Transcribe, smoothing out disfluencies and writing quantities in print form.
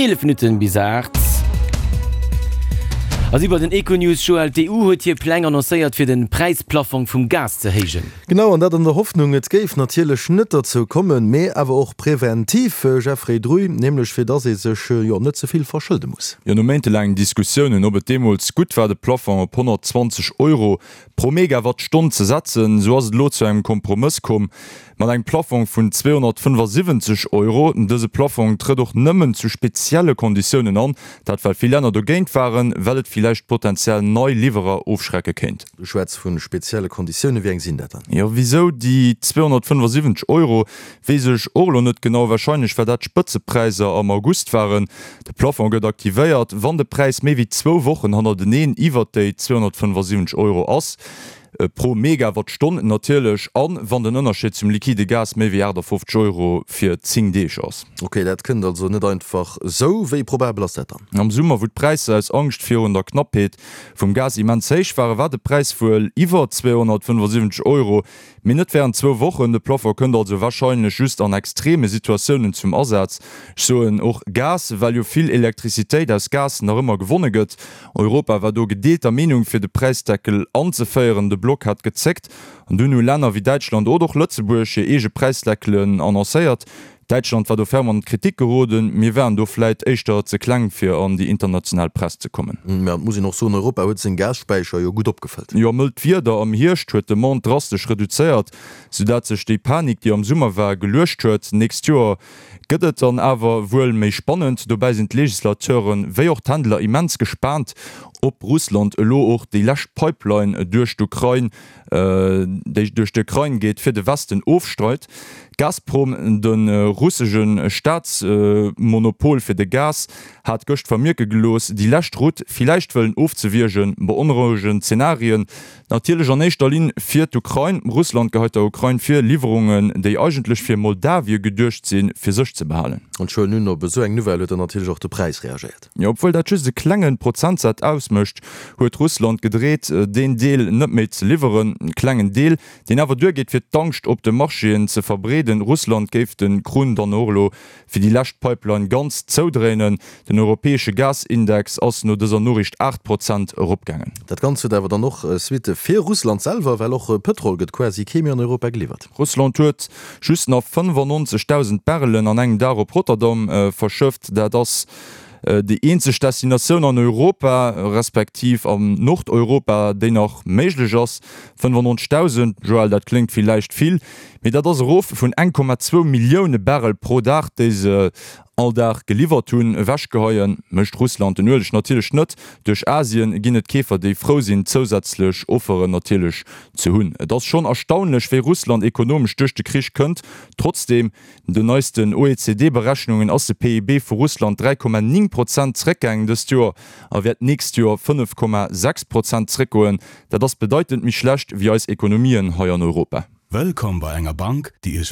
11 Minutten bis 8. A si bei den Econews, Joël, d'EU huet hir Pläng annoncéiert fir den Präisplaffong vum Gas ze héijen. Genau, an dat an der Hoffnung, et géif natierlech net derzou kommen, mee awer och preventiv, Jeffrey Druy, nämlech fir dass ee sech, jo, net ze vill verschëlde muss. Jo, no méintelaangen Diskussiounen, ob et deemools gutt war de Plafong op 120 Euro pro Megawattstonn ze setzen, esou ass et elo zu engem Kompromëss komm. Mat engem Plaffong vun 275 Euro. Dëse Plaffong trëtt och nëmmen zu spezielle Konditiounen an, dat well vill Länner dogéint waren, well et villäicht potenziell nei Liwwerer ofschrecke kéint. Du schwätz vu spezielle Konditiounen, wéi eng sinn dat dann? Jo, wisou déi 275 Euro, weess ech och elo net genau. Warscheinlech well dat d'Spëtzepräisser am August waren. De Plafond gëtt aktivéiert, wann de Präis méi wéi zwou Wochen hannerteneen iwwert déi 275 Euro ass. Pro Megawattstonn natierlech, an wann den Ënnerscheed zum liquide Gas méi wéi 58 Euro fir 10 Deeg ass. Ok, dat kënnt also net einfach esou. Wéi probabel ass dat dann? Am Summer, wou d'Präisser aus Angscht virun der Knappheet vum Gas immens héich waren, war de Präis wuel iwwer 275 Euro, mee net wärend zwou Wochen. De Plafond kënnt also warscheinlech just an extreme Situatiounen zum Asaz. Ech soen och Gas, well jo vill Elektrizitéit aus Gas nach ëmmer gewonne gëtt. Europa war do gedeelter Meenung fir de Präisdeckel anzeféieren. De Block hat gezéckt an dunn hu Länner wéi Däitschland oder och Lëtzebuerg hir eege Präisdeckelen annoncéiert. Däitschland war do ferm an d'Kritik geroden. Mir waren do vläit éischter ze kleng fir an déi international Press ze kommen. Mä et muss een och soen, Europa huet seng Gasspäicher jo gutt opgefëllt. Jo, mëllt Wieder am Hierscht huet d'Demande drastesch reduzéiert, soudat sech déi Panik, déi am Summer war, geluecht huet. Nächst Joer Gëtt et dann awer wuel méi spannend. Dobäi sinn d'Legislateuren, wéi och d'Händler immens gespaant, ob Russland elo och déi lescht Pipeline duerch d'Ukrain, déi duerch d'Ukrain geet, fir de Westen ofstreit. Gazprom, de russesche Staatsmonopol fir de Gas, hat gëscht vermierke gelooss, déi lescht Route villäicht wëllen ofzewiergen. Beonrouegend Zenarien Natierlech an éischter Linn fir d'Ukrain. Russland geheit der Ukrain vir, Liwwerungen, déi eigentlech fir Moldawie geduecht sinn, fir sech ze behalen. An scho nun op esou eng Nouvelle huet dann natierlech och de Präis reagéiert. Jo, obwuel dat just e klenge Prozentsaz ausmécht, huet Russland gedreet, deen Deel net méi ze liwweren. E klengen Deel, deen awer duergeet, fir d'Angscht op de Marchéen ze verbreeden. Russland géif de Krunn dann och elo fir déi lescht Pipeline ganz zoudréinen. Den europäesche Gasindex ass no dëser Noriicht 8 Prozent eropgaangen. Dat Ganzt huet awer dann och Suitte fir Russland selwer, well och Pëtrol gëtt quasi kee méi an Europa geliwwert. Russland huet just nach 95.000 Barrelen an engem Dag op Rotterdam verschëfft. Dat ass déi eenzeg Destinatioun an Europa, respektiv an Nordeuropa, déi nach méiglech ass. 95.000, Joël, dat kléngt villäicht vill, Mee dat ass erof vun 1,2 Millioune Barrel pro Dag, déi se all Dag geliwwert hunn. Ewechgeheie mécht Russland den Ueleg natierlech net. Duerch Asien ginn et Keefer, déi frou sinn, zousätzlech Offeren natierlech ze hunn. Et ass schonn erstaunlech, wéi Russland ekonomesch duerch de Krich kënnt. Trotzdeem, den neisten OECD-Berechnungen ass de PIB vu Russland 3,9 Prozent zeréckgaangen dëst Joer a wäert d'nächst Joer 5,6 Prozent zeréckgoen. Dat ass bedeitend méi schlecht wéi eis Ekonomien hei an Europa. Wëllkomm bei enger Bank, déi Iech.